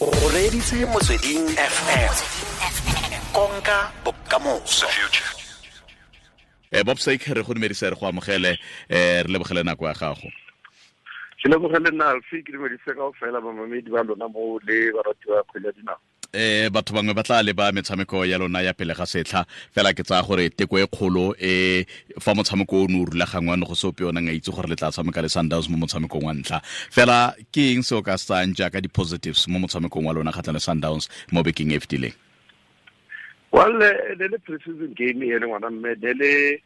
O reditse Motsweding FM, konka bokamoso. Bob Sake, re go dumedisa, re go amogele, re lebogele nako ya gago. Ke lebogele nna, Alfi. Ke dumedise kao fela bamamedi ba lona mo le barati ba kgwele ya dinao. Batho bangwe ba tla leba metshameko ya lona ya pele ga setlha fela. Ke tsaya gore teko e kgolo e fa motshameko o ne o rulagangwa, ne go se ope o neng a itse gore le tla tshameka le Sundowns mo motshamekong wa ntlha. Fela ke eng se o ka se tsayang jaaka di-positives mo motshamekong wa lona kgatlhang le Sundowns mo bekeng e fetileng? Well, le pre-season game e le, ngwana mme, le le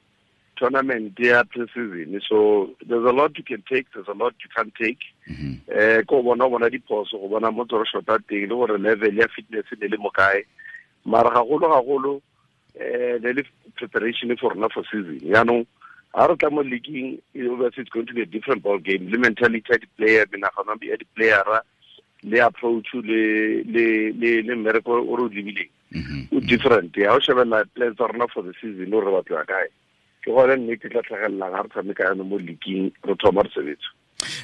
tournament ya pre-season, so there's a lot you can take, there's a lot you can't take. Ko bona diphoso, go bona mo tsoro shota teng, le gore level ya fitness ne le mo kae. Mara gagolo gagolo, le le preparation for rona for season. Yaanong ha re tla mo leaguing, obviously it's going to be a different ball game, le mentality ya di-player, menagano ya di-playera, le approach, le mmereko o re o lebileng o different. Ya o shebella plans tsa rona for the season, o re batlo ya kae, ke gone nnete tla tlhagelelang ga re tshameka yanong mo leaguing, re thoma re sebetsa.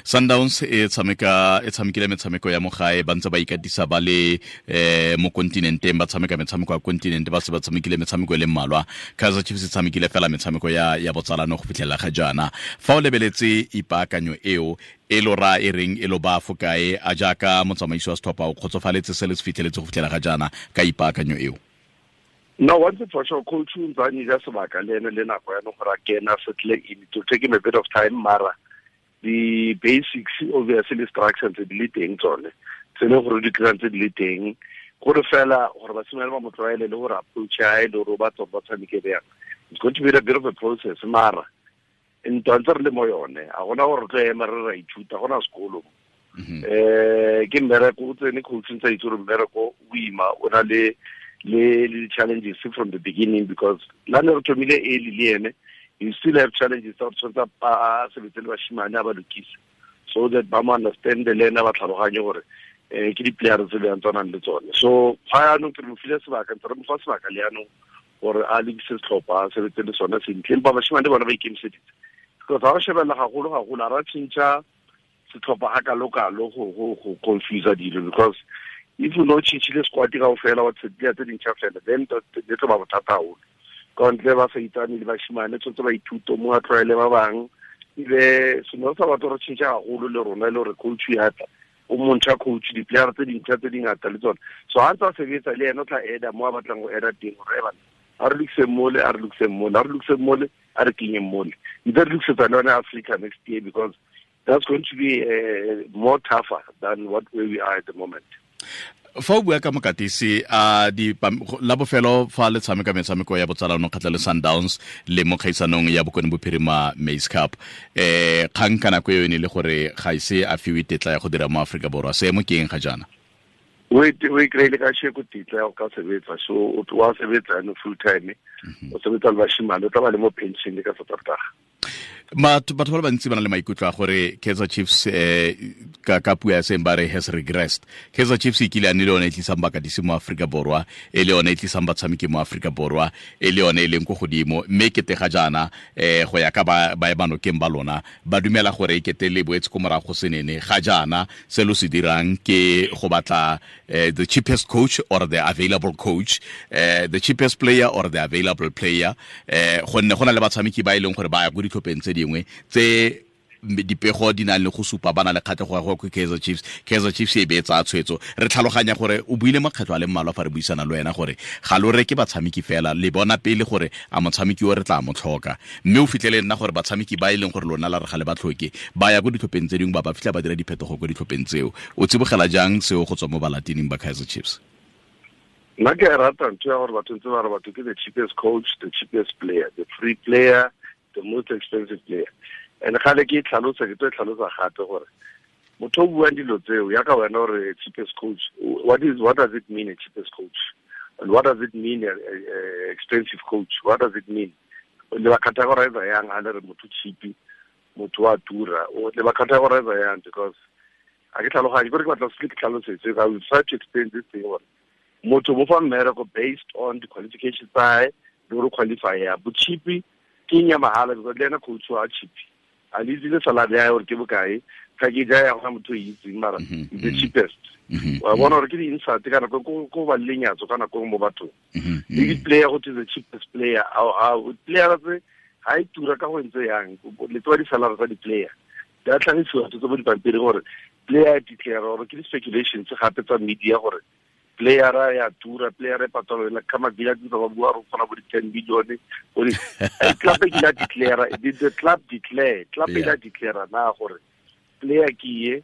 Sundowns e tshameka, e tshamekile metshameko ya mo gae, ba ntse ba ikatisa ba le mo kontinenteng, ba tshameka metshameko ya kontinente, ba se ba tshamekile metshameko e le mmalwa. Kaizer Chiefs e tshamekile fela metshameko ya botsalano go fitlhelela ga jaana. Fa o lebeletse ipaakanyo eo, e lo ra e reng e lo ba fo kae? A jaaka motsamaisi wa setlhopha, o kgotsofaletse se le se fitlheletse go fitlhela ga jaana ka ipaakanyo eo? No, one thing for sure, coach o ntse a nyija sebaka le ene le nako ya gore a kena settle in. It will take him a bit of time, mara the basics, obviously, the structure tse di le teng, tsone tse le gore di tlang tse di le teng, gore fela gore basimane ba mo tlwaele le gore approach ya e le gore o batla gore ba tshameke bjang. It's going to be a bit of a process, mara ntwa ntse re le mo yone. A gona gore re tlo ema re ra ithuta, gona sekolo. Ke mmereko o tsene, coach ntse a itse gore mmereko o ima, o na le challenges from the beginning, because la ne re thomile early le ene, you still have challenges tsa gore tshwanetse a sebetse le bashimane, a ba lokise so that ba mo understand le ene, ba tlhaloganye gore ke di-player tse bjang tshwanang le tsone. So ga yaanong ke re mo file sebaka, ntse re mo fa sebaka le yaanong gore a lokise setlhopha, a sebetse le sone sentle. Empa bashimane bona ba ikemiseditse, because ga o shebelela gagolo gagolo, a ra tšhentšha setlhopha ga kalo-kalo go confuse dilo, because if o ne o tšhintšhile squad kao fela, wa tshedile tse dintšha fela, then le tlo ba bothata haholo. Ka ntle ba sa itsane le bashimane, tshwanetse ba ithute mo, a tlwaele ba bang. Ebe seno sa batho re tšhentšha gagolo le rona, e le gore coach ya tla o montšha, coach di-player tse dintšha tse dingata le tsone. So ga ntse a sebetsa le ene, o tla eda mo a batlang go eda teng, gore ebana a re lokiseng mole, a re lokiseng mole, a re lokiseng mole, a re kenyeng mole, ntse re lokisetsa le yone Africa next year, because that's going to be more tougher than what where we are at the moment. Fa o bua ka mokatisi a di la bofelo fa le tshameka metshameko ya botsalano kgatlha le Sundowns le mo kgaisanong ya Bokone Bophirima Maize Cup, kgang ka nako eo e ne le gore ga ise a fiwe tetla ya go dira mo Aforika Borwa. Seemo ke eng ga jaana? O e kry-ile ka sheko tetla ya go ka sebetsa, so o wa sebetsa yaanong full time. O sebetsa le bashimane, o tla ba le mo pension ka Saterdag. Batho ba le bantsi ba na le maikutlo a gore Kaizer Chiefs, ka puo ya seng ba re, has regressed. Kaizer Chiefs e kile a ne le yone e tlisang bakatisi mo Aforika Borwa, e le yone e tlisang batshameki mo Aforika Borwa, e le yone e leng ko godimo, mme kete ga jaana, go ya ka ba emanokeng ba lona, ba dumela gore e kete le boetse ko morago senene. Ga jaana se lo se dirang ke go batla the cheapest coach or the available coach, the cheapest player or the available player, gonne go na le batshameki ba e leng gore ba ya ko ditlhopheng tse dingwe tse dipego di nang le go supa ba na le kgatlhego ya go ko Kaizer Chiefs. Kaizer Chiefs e be tsa tshwetso. Re tlhaloganya gore o buile makgetlho a le mmalwa fa re buisana le wena gore ga lo reke batshameki fela, le bona pele gore a motshameki o re tla mo tlhoka. Mme o fitlhele nna gore batshameki ba e leng gore lona la re ga le ba tlhoke, ba ya ko ditlhopheng tse dingwe, ba ba fitlha ba dira diphetogo ko ditlhopheng tseo. O tsibogela jang seo go tswa mo balatining ba Kaizer Chiefs? Nna ke a rata ntho ya gore batho ntse ba re batho ke the cheapest coach, the cheapest player, the free player, the most expensive player. And gale ke e tlhalosa, ke tlo e tlhalosa gape, gore motho o buang dilo tseo yaka wena gore cheapest coach, what does it mean, a cheapest coach? And what does it mean, a expensive coach? What does it mean? Le ba categorize yang ha le re motho cheap, motho wa tura? Le ba categorize yang? Because a ke tlhaloganye, kore ke batla se ke tlhalosetse. I will try to explain this thing, gore motho mo fa mmereko based on the qualifications tsa hae le gore qualify ya bo cheap ke eng ya mahala, because le ena coach wa cheap. A le itse le salary ya gore ke bokae, package ya gona motho e itseng, mara the cheapest. Wa bona gore ke di-insult ka nako ko ba lenyatso ka nako mo bathong. Le di-player go the cheapest player, player tse ha e tura ka go ntse yang, le tsewa di-salary tsa di-player. Di a tlhagisiwa tse mo dipampiri gore player declare, gore ke di-speculations gape tsa media gore player ya tura, player e patalo la kama bila tsa ba bua re kgona bo di 10 billion go di club e la declare, did the club declare, club e la declare na gore player ke ye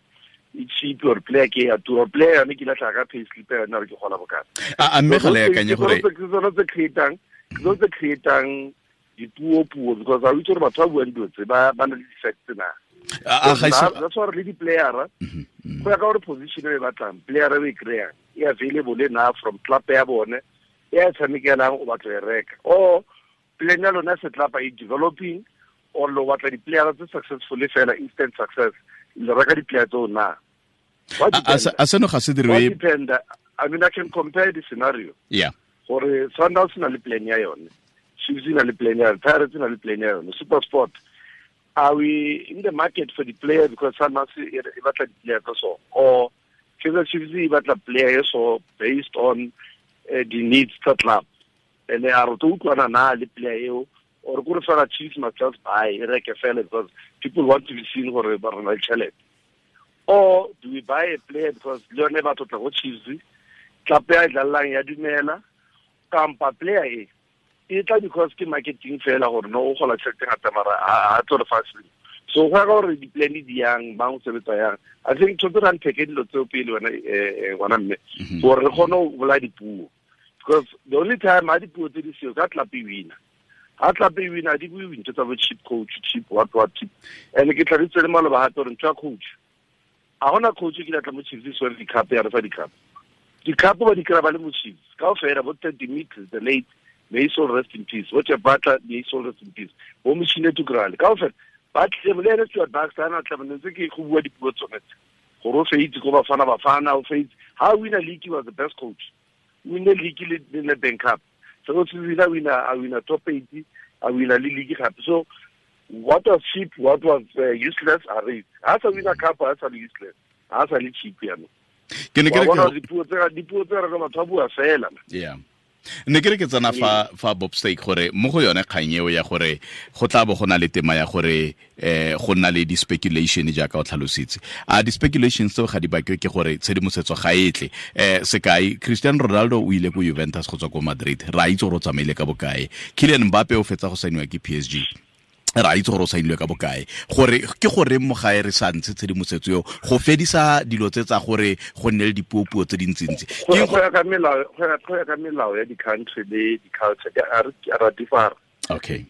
e cheap or player ke ya tura, player ne ke la tla ka pay slip ya nna re ke gola bokana. A mme ga le akanye gore ke tsona tse creatang, ke tsona tse creatang dipuo because a itse gore batho ba buang dilo tse ba na le di-facts na. That's why re le di-player go ya ka gore position e batlang, player e kry-ang e available na from club ya bone e a tshamekelang, o batla e reka, or plan ya lona setlapa e developing, or lo batla di-player tse successful fela, instant success, le reka di-player tseo na. A seno ga se dirwe. I mean, I can compare the scenario. Yeah. Gore Sundowns na le plan ya yone, Chiefs na le plan ya yone, Pirates na le plan ya yone, SuperSport. Are we in the market for the player because Sundowns e batla di-player tsa so, or Kaizer Chiefs e batla player so based on the needs tsa club, and a re tlo utlwana na le player eo, or kore fela Chiefs must just buy e reke fela because people want to be seen gore ba rona le tšhelete, or do we buy a player because le yone ba tlotla go Chiefs, club ya e dlalelang ya dumela, kampa player e e tla because ke marketing fela gore no o gola tšhelete ngata mara a tlo re fa selo. So go ya ka gore di-plan di yang, bang o sebetsa yang. I think tshwanetse re unpacke dilo tseo pele wena ngwana mme, gore re kgone go bolaya dipuo, because the only time ha dipuo tse di seo ka club e wina, ha club e wina di bue ntho tsa bo cheap coach, cheap what what cheap. And ke tlhalositse le maloba gape gore ntho ya coach, a gona coach ke tla mo Chiefs so di-cup ya re fa di-cup, di-cup ba di kry-a ba le mo Chiefs kaofela, bo Ted Dimitri the late, may soul rest in peace, bo Jeff Butler, may soul rest in peace, bo Machine Tukrale kaofela ba tlile le ene Stuart Baxter ana tla ntse ke go bua dipuo tsone gore o feitse ko Bafana Bafana, o feitse ha wina league, was the best coach, win league le Nedbank Cup, so o tsile wina, a wina top 8, a wina le league gape. So what was cheap, what was useless, a re ha sa wina cup, ha sa le useless, ha sa le cheap yana. Ke ne ke re dipuo tse re batho ba bua fela. Yeah. Ne ke re ke tsena fa Bob Steak gore mo go yone kgang eo ya gore go tla bo go na le tema ya gore go nna le di-speculation jaaka o tlhalositse. A di-speculations tseo ga di bakwe ke gore tshedimosetso ga e tle. Sekai, Cristiano Ronaldo o ile ko Juventus go tswa ko Madrid, ra itse gore o tsamaile ka bokae. Kylian Mbappe o fetsa go saeniwa ke PSG, ra itse gore o saenilwe ka bokae. Gore ke gore mo gae re sa ntshe tshedimosetso eo go fedisa dilo tse tsa gore go nne le dipuopuo tse dintsintsi. Go ya ka melao, go ya ka melao ya di-country le di-culture a ra differ. Okay.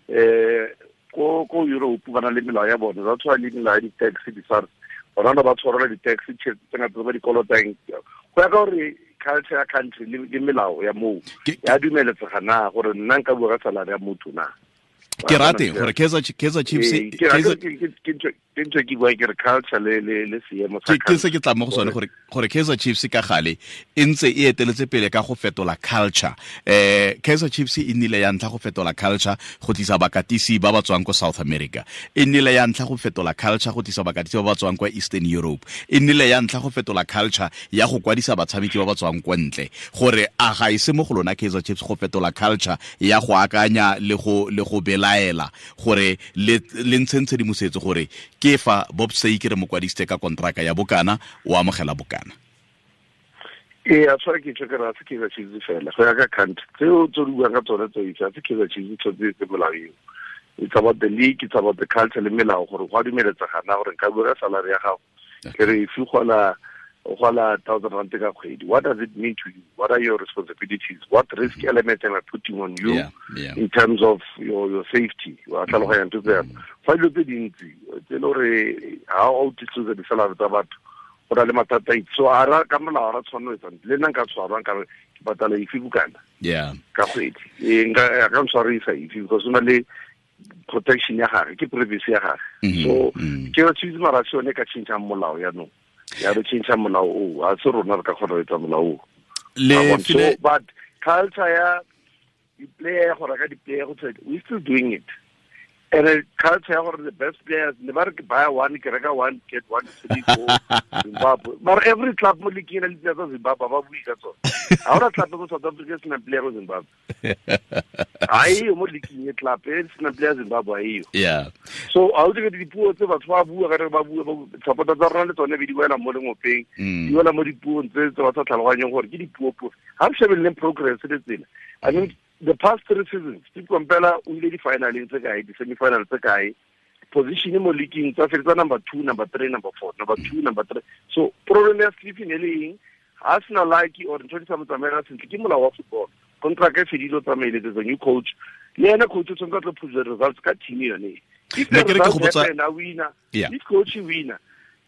Ko Europe ba na le melao ya bone, ba tshwana le melao ya di-tax, di-SARS, bona ba tshwarela di-tax tšhelete tse ngata tse ba di kolotang. Go ya ka gore culture ya country le melao ya moo ya dumeletsega na gore nna nka bua ka salary ya motho na. Ke rate gore Kaizer Chiefs ke ntho ke bua ke re culture le seemo sa ke se ke tla mo go sone gore Kaizer Chiefs ka gale e ntse e eteletse pele ka go fetola culture. Kaizer Chiefs e nnile ya ntlha go fetola culture go tlisa bakatisi ba ba tswang ko South America, e nnile ya ntlha go fetola culture go tlisa bakatisi ba ba tswang kwa Eastern Europe, e nnile ya ntlha go fetola culture ya go kwadisa batshameki ba ba tswang kwa ntle. Gore a ga e se mo go lona Kaizer Chiefs go fetola culture ya go akanya le go belaela gore le ntsheng tshedimosetso gore ke fa Bob Steak re mo kwadisitse ka kontraka ya bokana, o amogela bokana. Ee, a tshwara ke tšho ke re a se Kaizer Chiefs fela, go ya ka country tseo tse di buang ka tsone tse itse, a se Kaizer Chiefs tshwanetse tse molao eo. It's about the league, it's about the culture le melao gore go a dumeletsega na gore nka bua ka salary ya gago ke re if o gola 1,000 rand ka kgwedi, what does it mean to you? What are your responsibilities? What risk elements am I putting on you in terms of your safety? Wa tlhaloganya ntho tse fa dilo tse dintsi tse le gore ha o disclose di-salary tsa batho go na le mathata. So a ra ka molao ra tshwanelo etsa le nna nka tshwarwa nka re ke patala efe bokana ka kgwedi, nka ka ntshwarisa efe because o na le protection ya gage, ke privacy ya gage. So ke re Chiefs mara se yone ka tšhentšhang molao yaanong, ya re tšhentšha molao o, a se rona re ka kgona go etsa molao o. So but culture ya di-player go reka di-player go we still doing it. And culture ya gore the best players ne ba re ke buy one ke reka one get one three go Zimbabwe. But every club mo league ena le tsa Zimbabwe ba bui ka tsone. Ha ora club mo South Africa sena player go Zimbabwe. Ai mo league e club e sena player Zimbabwe ayo. Yeah. So a o dire dipuo tse batho ba bua ka re ba bua ba support tsa rona le tsone be di wela mo lengopeng. Di wela mo dipuong tse tse ba sa tlhaloganyeng gore ke dipuo puo. Ha re shebeleng progress le tsela. I mean the past 3 seasons, Steve Komphela o ile di-finaleng tse kae, di-semi-final tse kae, position mo league tsa fetsa number 2, number 3, number 4, number 2, number 3. So problem ya Steve ne le eng? Ha sena like or ntho di sa mo tsamaela sentle ke molao wa football. Contract e fedile o tsamaile, there's a new coach. Le ena coach o tshwanetse a tlo push the results ka team yone. If the results happen, a winner. Yeah. If coach winner,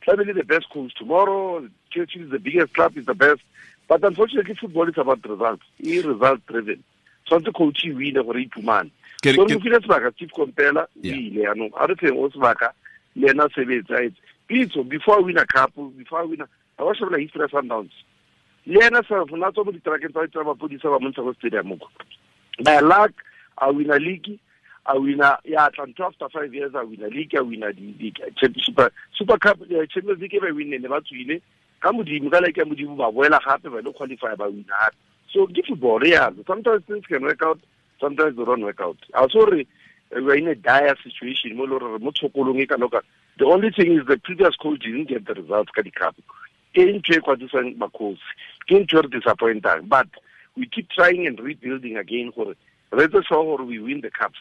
tlamehile the best coach tomorrow, Chelsea is the biggest club, is the best. But unfortunately football is about results. E result driven. Tshwanetse coach e wine gore iphumane. So re file sebaka Steve Komphela o ile yanong a re feng o sebaka le ena sebetsa etse. Pitso before win a cup, before win a wa shebela history ya Sundowns. Le ena self na tswa mo ditrakeng tsa mapodisa ba montsha go stadium ko. By luck a win a league, a win a ya tla ntho after 5 years a win a league, a win a di championship Super Cup, Champions League ba win ne ba tswile ka modimo ka like ya modimo ba boela gape ba le qualify ba win gape. So give football, yeah. Sometimes things can work out, sometimes they don't work out. Also, we are in a dire situation. The only thing is the previous coach didn't get the results. But we keep trying and rebuilding again. We win the cups.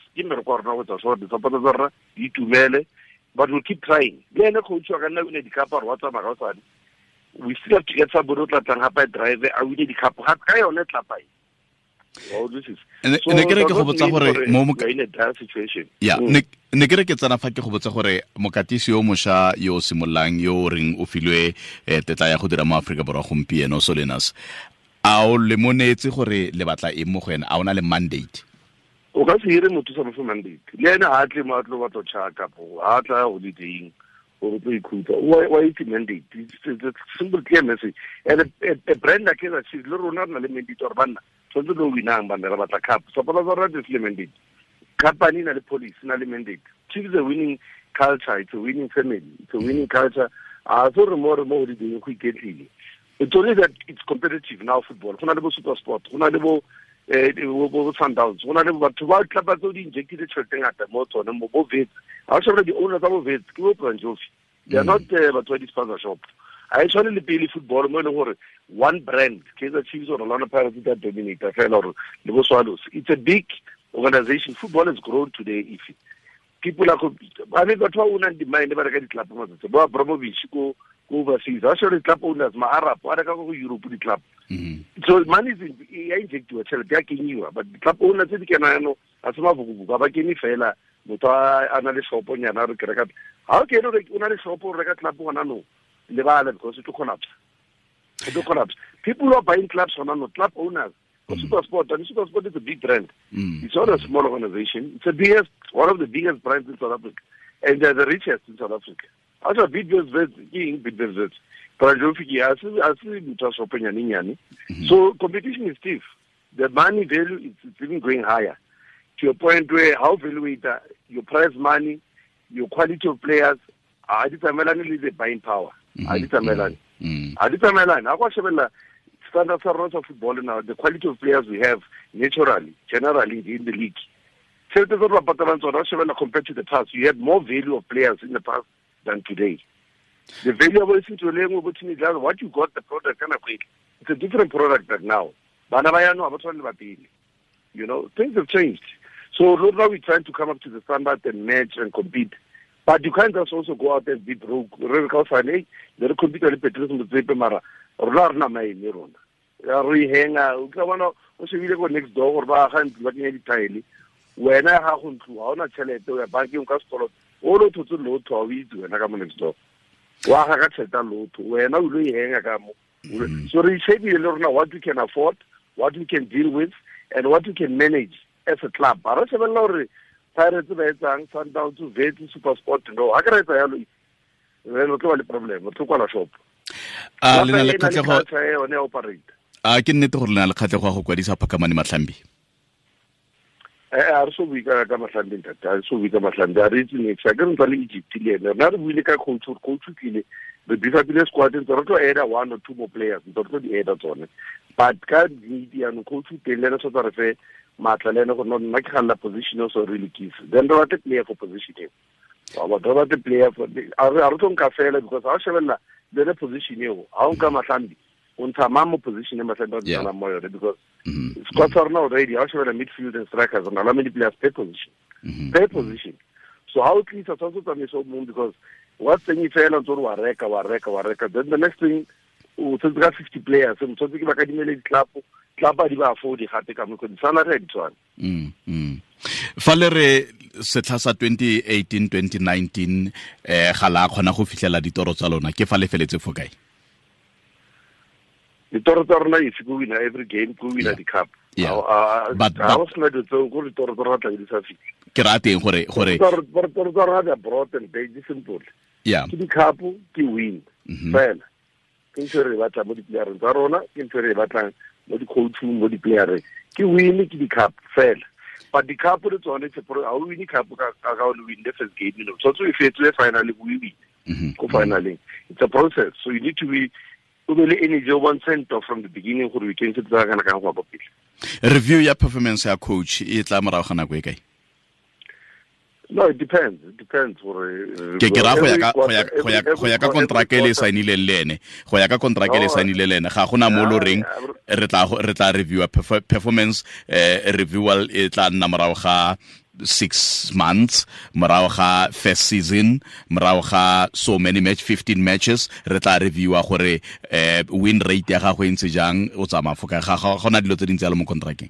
But we'll keep trying. We still have to get somebody who can drive a win the cup. Ne ke re ke go botsa gore mo situation. Yeah, ne ke re ke tsana fa ke go botsa gore mokatisi yo mosha yo simollang yo reng o filwe tetla ya go dira mo Afrika Borwa gompieno Solinas. A o le monetse gore le batla eng mo go ena? A ona le mandate? O ka se hire motho sa mo mandate. Le ena ha tle mo a tlo batla tshaka po, ha tla holidaying. Why is it mandate? It's a simple clear message. And a brand like that, she's not a mandate or banna. So no winang banna batla cup. Suppose already is mandate. Company na the police na mandate. Chiefs a winning culture. It's a winning family. It's a winning culture. So more and more the quickly. It's only that it's competitive now football. Go na le bo Super Sport. Go na le bo Sundowns. Go na le batho ba tlapa tse di injected tšhelete ngata mo tsone mo bo Wits. Ha o the owners of Wits ke bo Branjofi. They are not batho ba di-sponsor shop. Ha e tshwane le pele football mo e leng gore one brand, Kaizer Chiefs or Orlando Pirates that dominate fela or le bo Swallows. It's a big organization. Football has grown today. If people are, I mean, batho ba ownang di-mine ba reka di-club matsatsi. Bo Abramovich ko overseas. Ha shebela di-club owners, ma-Arab, ba reka ko Europe di-club. So money is ya injectiwa tšhelete ya kenyiwa, but di-club owners tse di kena yano ha se mabukubuku, ba kene fela motho a na le shoponyana re ke reka. Ha o kene o na le shop o reka club gona no lebala because it will collapse. It will collapse. People who are buying clubs gona no, club owners. Super Sport, and Super Sport is a big brand. It's not a small organization. It's the biggest, one of the biggest brands in South Africa, and they're the richest in South Africa. Also, Bidvest Wits, Bidvest Wits. So competition is stiff. The money value is even going higher to a point where how value your prize money, your quality of players, are determined the buying power. Are determined. Standards of football now, the quality of players we have naturally, generally in the league. Compared to the past, you had more value of players in the past than today. The value of what you got, the product kind of quick. It's a different product than now. You know, things have changed. So now we're trying to come up to the standard and match and compete. But you can't just also go out and be broke. Re henga o tla bona o shebile ko next door gore ba ga ntlo ba kenya dithaele wena ga go ntlo ha ona tšhelete o ya bankeng ka sekoloto o lo thotse lotho ha o itse wena ka mo next door wa ga ka tšhelete lotho wena o lo henga ka mo. So re shebile le rona what we can afford, what we can deal with, and what we can manage as a club. Ba re shebella gore Pirates ba etsang, Sundowns, Wits, Super Sport, no ha ke re etsa yalo re lo tlo ba le problem, o tlo kwala shop. A le na le kgatlhego a ke nnete gore le na le kgatlhego ya go kwadisa Phakamani Mahlambi? A re so bue ka Mahlambi ntate, a re so bue ka Mahlambi, a re itse next. A ke re ntse le Egypt le ene. Rena re buile ka coach, coach o tlile. Re beef-upile squad ntse re tlo add 1 or 2 more players, ntse re tlo di add tsone. But ka need yaanong coach o teng le ene tshwanetse re fe maatla le ene gore no nna ke galela position eo so re lokise. Then re batle player for position eo. Wa bona, re batle player for, a re tlo nka fela because ha o shebella le yone position eo, ha o nka Mahlambi, o ntsha mang mo position e Mahlambi a tshwanang mo yone because squad sa rona already, ha o shebella midfield and strikers, re na le many players per position. Per position. So ha o tlisa tshwanetse o tsamaise o mong because wa tsenye fela ntse o re wa reka, wa reka, wa reka. Then the next thing, o tshwanetse ka 50 players, o tshwanetse ke ba kadimele di-club, club a di ba afford gape ka mo, di-salary ha di tshwane. Fa le re setlha sa 2018-2019, ga la kgona go fitlhela ditoro tsa lona, ke fa le feletse fo kae? Ditoro tsa rona is go win every game, go win the cup. But I was not so go ditoro tsa rona tla di sa fitlhe. Ke rata eng gore Ditoro tsa rona they are broad and very simple. Ke di cup, ke win. Fela. Ke ntho e re batlang mo di-playereng tsa rona, ke ntho e re batlang mo di-coaching, mo di-playereng. Ke win, ke di-cup fela. But the cup le tsone, it's a pro, ha o win cup ka o le win the first game, you know. Tshwanetse o e fetse finally, o e win. Ko finally. It's a process. So you need to be, o be le energy o bontshe ntwa from the beginning gore we can se tsaya kana kang go ya kwa pele. Review ya performance ya coach e tla morago ga nako e kae? No, it depends. It depends gore, Ke ra go ya ka, every go ya, go ya, every go ya ka quarter, contract e le every quarter. saenileng le ene. Go ya ka contract e le No, saenileng le ene. Ga gona mo lo reng, yeah, re tla review performance, reviewal e tla nna morago ga 6 months, morago ga first season, morago ga so many match, 15 matches, re tla reviewa gore, win rate ya gago e ntse jang, o tsamaya fo kae. Ga gona dilo tse dintsi jalo mo contracteng.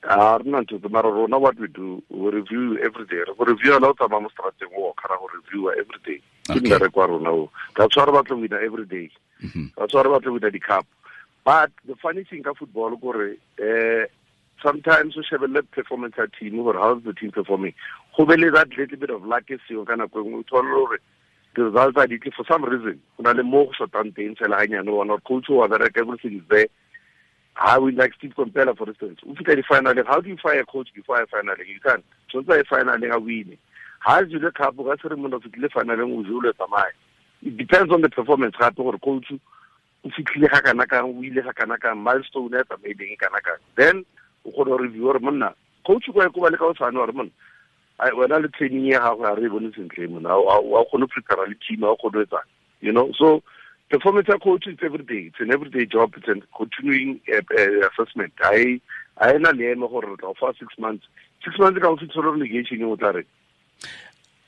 A re nna ntho tse, mara rona what we do, we review every day. Re go review la o tsamaya mo strateng o kgara go reviewa every day. Ke mmereko wa rona o. That's why re batla go wina every day. That's why re batla go wina di-cup. But the funny thing ka football ke gore, sometimes o shebelle performance ya team gore how is the team performing. Go be le that little bit of luck e seo ka nako e nngwe, o thole gore the results are ditle for some reason. Go na le mo go shotang teng fela hanyane, o bona gore coach wa bereka, everything is there. How we like Steve Komphela, for instance. If you get the final, how do you fire a coach before a final? You can't. So it's a final, I win. How do you look up? That's the moment of the final, we will let them. It depends on the performance. How to coach, if you clear Hakanaka, we let Hakanaka, milestone, maybe Kanaka. Then we could review or Mona. Coach, you go like our man. I when I training here, how I revolution claim now. I couldn't prepare a team, I could do that. You know, so. Performance coach is every day. It's an everyday job. It's a continuing assessment. I na le eme gore re tla fa 6 months. 6 months ka o fitlhela relegation e o tla re.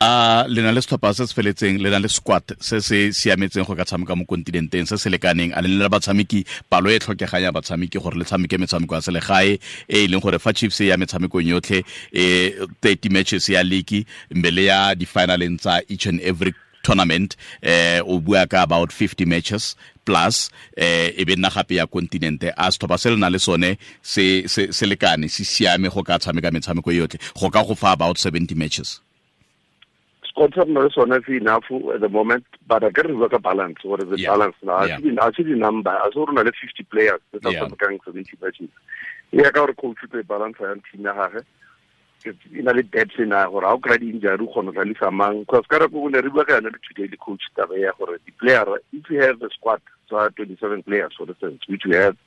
A le na le setlhopha se se feletseng, le na le squad se se siametseng go ka tshameka mo kontinenteng se se lekaneng, a le na le batshameki, palo e tlhokegang ya batshameki gore le tshameke metshameko ya selegae e e leng gore fa Chiefs e ya metshamekong yotlhe, 30 matches ya league, mme le ya di-finaleng tsa each and every tournament, o bua ka about 50 matches plus, e be nna gape ya kontinente. A setlhopha se le na le sone se lekane, se siame go ka tshameka metshameko yotlhe, go ka go fa about 70 matches. Squad sa rona le sone se enough at the moment, but I can work a balance. What is the balance now? I see the number. I saw rona le 50 players tse tla tshamekang 70 matches. E ya ka gore coach o tlo e balance yang team ya gagwe. E na le depth ena gore ha o kry-a di-injury o kgona go tlalisa mang. Because ka nako e ne re bua ka yone le today le coach taba ya gore di-player, if you have a squad tsa 27 players for instance, which we have,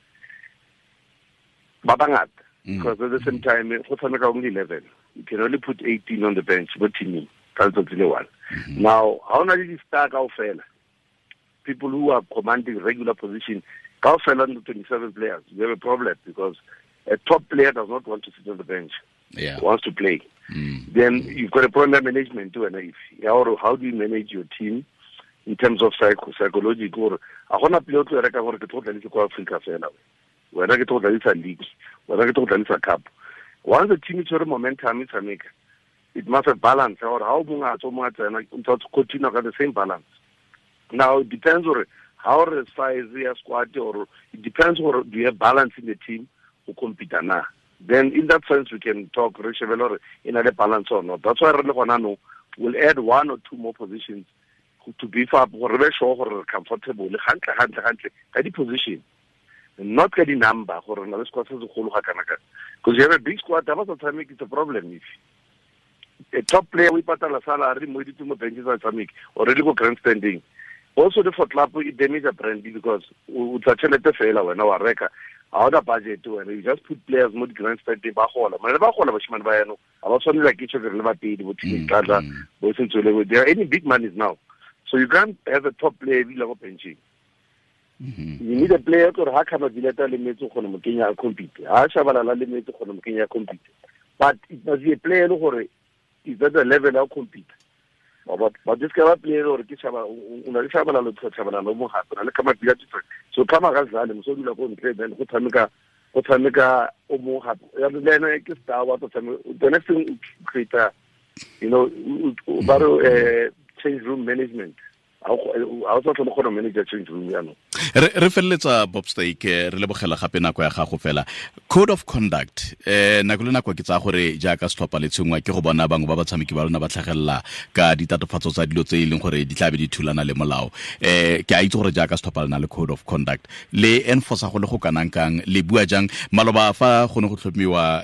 ba bangata. Because at the same time, go tshameka only 11. You can only put 18 on the bench mo teaming ka letsatsi le one. Now, ha o na le di-star kaofela, people who are commanding regular position, kaofela the 27 players, you have a problem because a top player does not want to sit on the bench. Wants to play. Then you've got a problem management too, and if how do you manage your team in terms of psychological? Or a gona player o tlo reka gore ke tlo tlalisa kwa Africa fela. Wena ke tlo tlalisa league, wena ke tlo tlalisa cup. Once the team is tshwere momentum e tshameka, it must have balance. Or how mongwe a tswa, mongwe a tsena, o ntse a continue ka the same balance. Now it depends on how the size ya squad, or it depends on do you have balance in the team go compete na. Then in that sense we can talk re shebe le hore e na le balance or not. That's why re le gona nou, we'll add 1 or 2 more positions to beef up gore re be sure gore re comfortable hantle, hantle, hantle ka di position. Not ka di-number gore na le squad se segolo ga kana kana, because you have a big squad, ha ba sa tshameke, it's a problem. If a top player o ipatala salary mo ditse mo bench sa tshameke already go grandstanding, also the for club it damage a brand, because o tla tšhelete fela wena wa reka, ha ona budget wena, you just put players mo di grandstanding ba gola, mane ba gola bashimane ba yano ha ba tshwane like each other le ba pedi bo team tlatla bo sentswele, they are earning big monies now, so you can't have a top player ebile go benching. You need a player gore ha Khama Billiat le metse gone mo kenya a compete, ha Shabalala le metse gone mo kenya a compete, but it must be a player gore is at the level of compete. But this kind of player gore ke Shaba o na le Shabalala le Shabalala mo gape na le Khama Billiat, so Khama ga zale mo so dula go ntle, then go tshameka o mo gape ya le ena ke star wa tshameka. The next thing create, you know, ba re change room management. I was also going to manage change room jaanong. Re feleletsa Bob Steak, re lebogela gape nako ya gago fela. Code of conduct, nako le nako ke tsaya gore jaaka setlhopha le tshengwa ke go bona bangwe ba batshameki ba lona ba tlhagelela ka ditatofatso tsa dilo tse e leng gore di tla be di thulana le molao. Ke a itse gore jaaka setlhopha le na le code of conduct, le enforce go le go kanang kang, le bua jang? Maloba fa go ne go tlhomiwa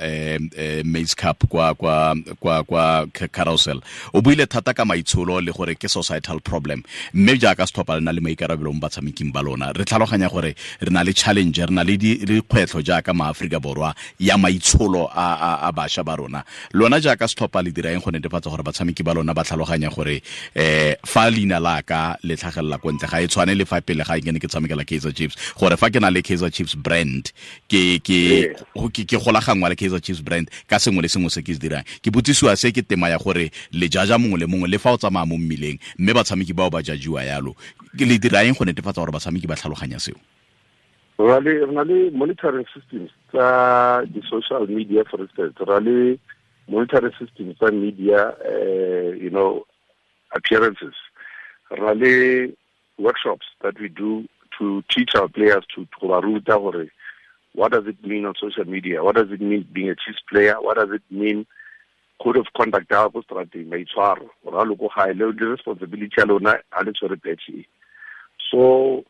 Maize Cup kwa kwa kwa kwa Carousel, o buile thata ka maitsholo le gore ke societal problem, mme jaaka setlhopha le na le maikarabelo mo batshameking ba lona, re tlhaloganya gore re na le challenge, re na le dikgwetlho jaaka maAforika Borwa ya maitsholo a bašwa ba rona. Lona jaaka setlhopha le dira eng go netefatsa gore batshameki ba lona ba tlhaloganya gore fa leina la ka le tlhagelela ko ntle ga e tshwane le fa pele ga ke ne ke tshamekela Kaizer Chiefs, gore fa ke na le Kaizer Chiefs brand ke golaganngwa le Kaizer Chiefs brand ka sengwe le sengwe se ke se dirang. Ke botsisiwa se ke tema ya gore le jaja mongwe le mongwe le fa o tsamaya mo mmileng, mme batshameki bao ba jajiwa yalo. Le dira eng go netefatsa gore batshameki ba tlhaloganya seo? Re na le monitoring systems tsa di-social media, for instance, re le monitoring systems tsa media, you know, appearances. Re le workshops that we do to teach our players to ba ruta gore what does it mean on social media, what does it mean being a Chiefs player, what does it mean code of conduct ya go strateng, maitshwaro, gore a loko gae le responsibility ya lona a le tshwere patch. So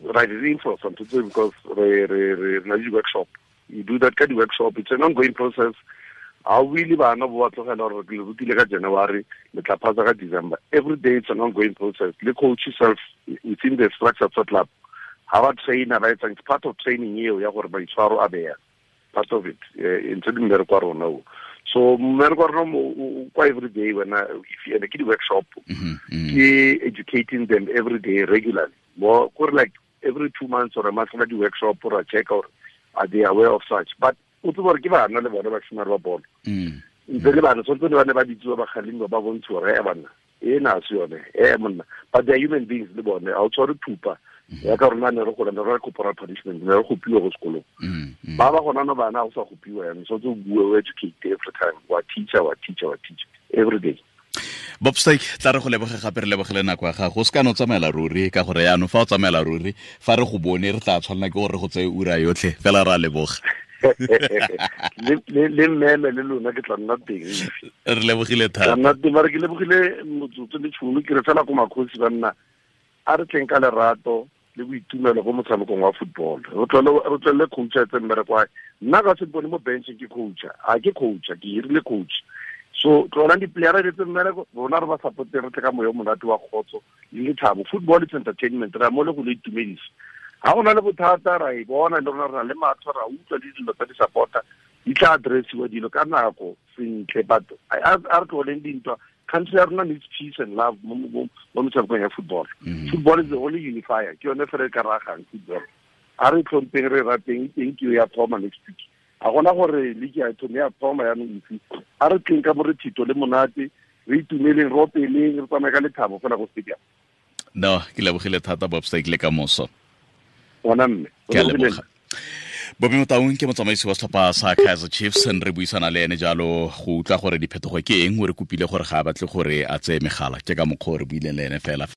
right, reinforce something because re na le workshop. You do that kind of workshop, it's an ongoing process. Ha o ile bana bo ba tlogela gore le rutile ka January, le tla phasa ka December. Every day it's an ongoing process. Le coach yourself within the structure of the club. Ha ba trainer ba etsang, it's part of training eo ya gore maitshwaro a beya. Part of it. Ntse di mmereko wa rona o. So mmereko wa rona kwa every day when if you ke di workshop, ke educating them every day regularly. More like every 2 months or a month di workshop or a check or are they aware of such. But o tsebe gore ke bana le bone ba shimare ba bolo. Ntse le bana tshwanetse le bane ba bitsiwa ba kgalemiwa ba bontshiwa gore banna e na se yone monna, but they are human beings le bone, ha o tshware thupa ya ka rona ne re gola ne re corporal punishment, ne re gopiwa go sekolong. Ba ba gona no bana o sa gopiwa yana, so tse bue o educate every time, wa teacher every day. Bob Steak, tla re go leboge gape, re lebogele nako ya gago. O se ka no tsamaela ruri ka gore yaanong fa o tsamaela ruri fa re go bone re tla tshwanela ke gore re go tseye ura yotlhe fela, ra leboga. Le mmeme le lona ke tla nna teng. Re lebogile thata. Nna teng, mare ke lebogile motsotso le tšhono, ke re fela ko makgosi banna a re tleng ka lerato le boitumelo go motshamekong wa football. Re tlwele coach a tse mmereko wa nna ka se bone mo bench ke coach, a ke coach, ke hirile coach. So tlolang di-playera di tse mmereko, rona re ba supporte, re tle ka moya o monate wa kgotso le lethabo. Football is entertainment, re a mo le go le itumedisa. Ha go na le bothata ra e bona le rona re na le matlho, ra utlwa le dilo tsa di-supporter di tla addressiwa dilo ka nako sentle, but a re tloleng dintwa. Country ya rona needs peace and love mo metshamekong ya football. Football is the only unifier, ke yone fela e ka ragang football. A re tlhompeng, re rateng, teng ke ya thoma next week. A gona gore league ya thome ya thoma yaanong efe. A re tleng ka morethito le monate, re itumeleng, re opeleng, re tsamaye ka lethabo fela go stadium. No, ke lebogile thata Bob Steak, le ka moso. Ona mme. Ke a leboga. Bobby Motaung ke motsamaisi wa setlhopha sa Kaizer Chiefs, re buisana le ene jalo go utlwa gore diphetogo ke eng, o re kopile gore ga a batle gore a tseye megala, ke ka mokgwa o re buileng le ene fela.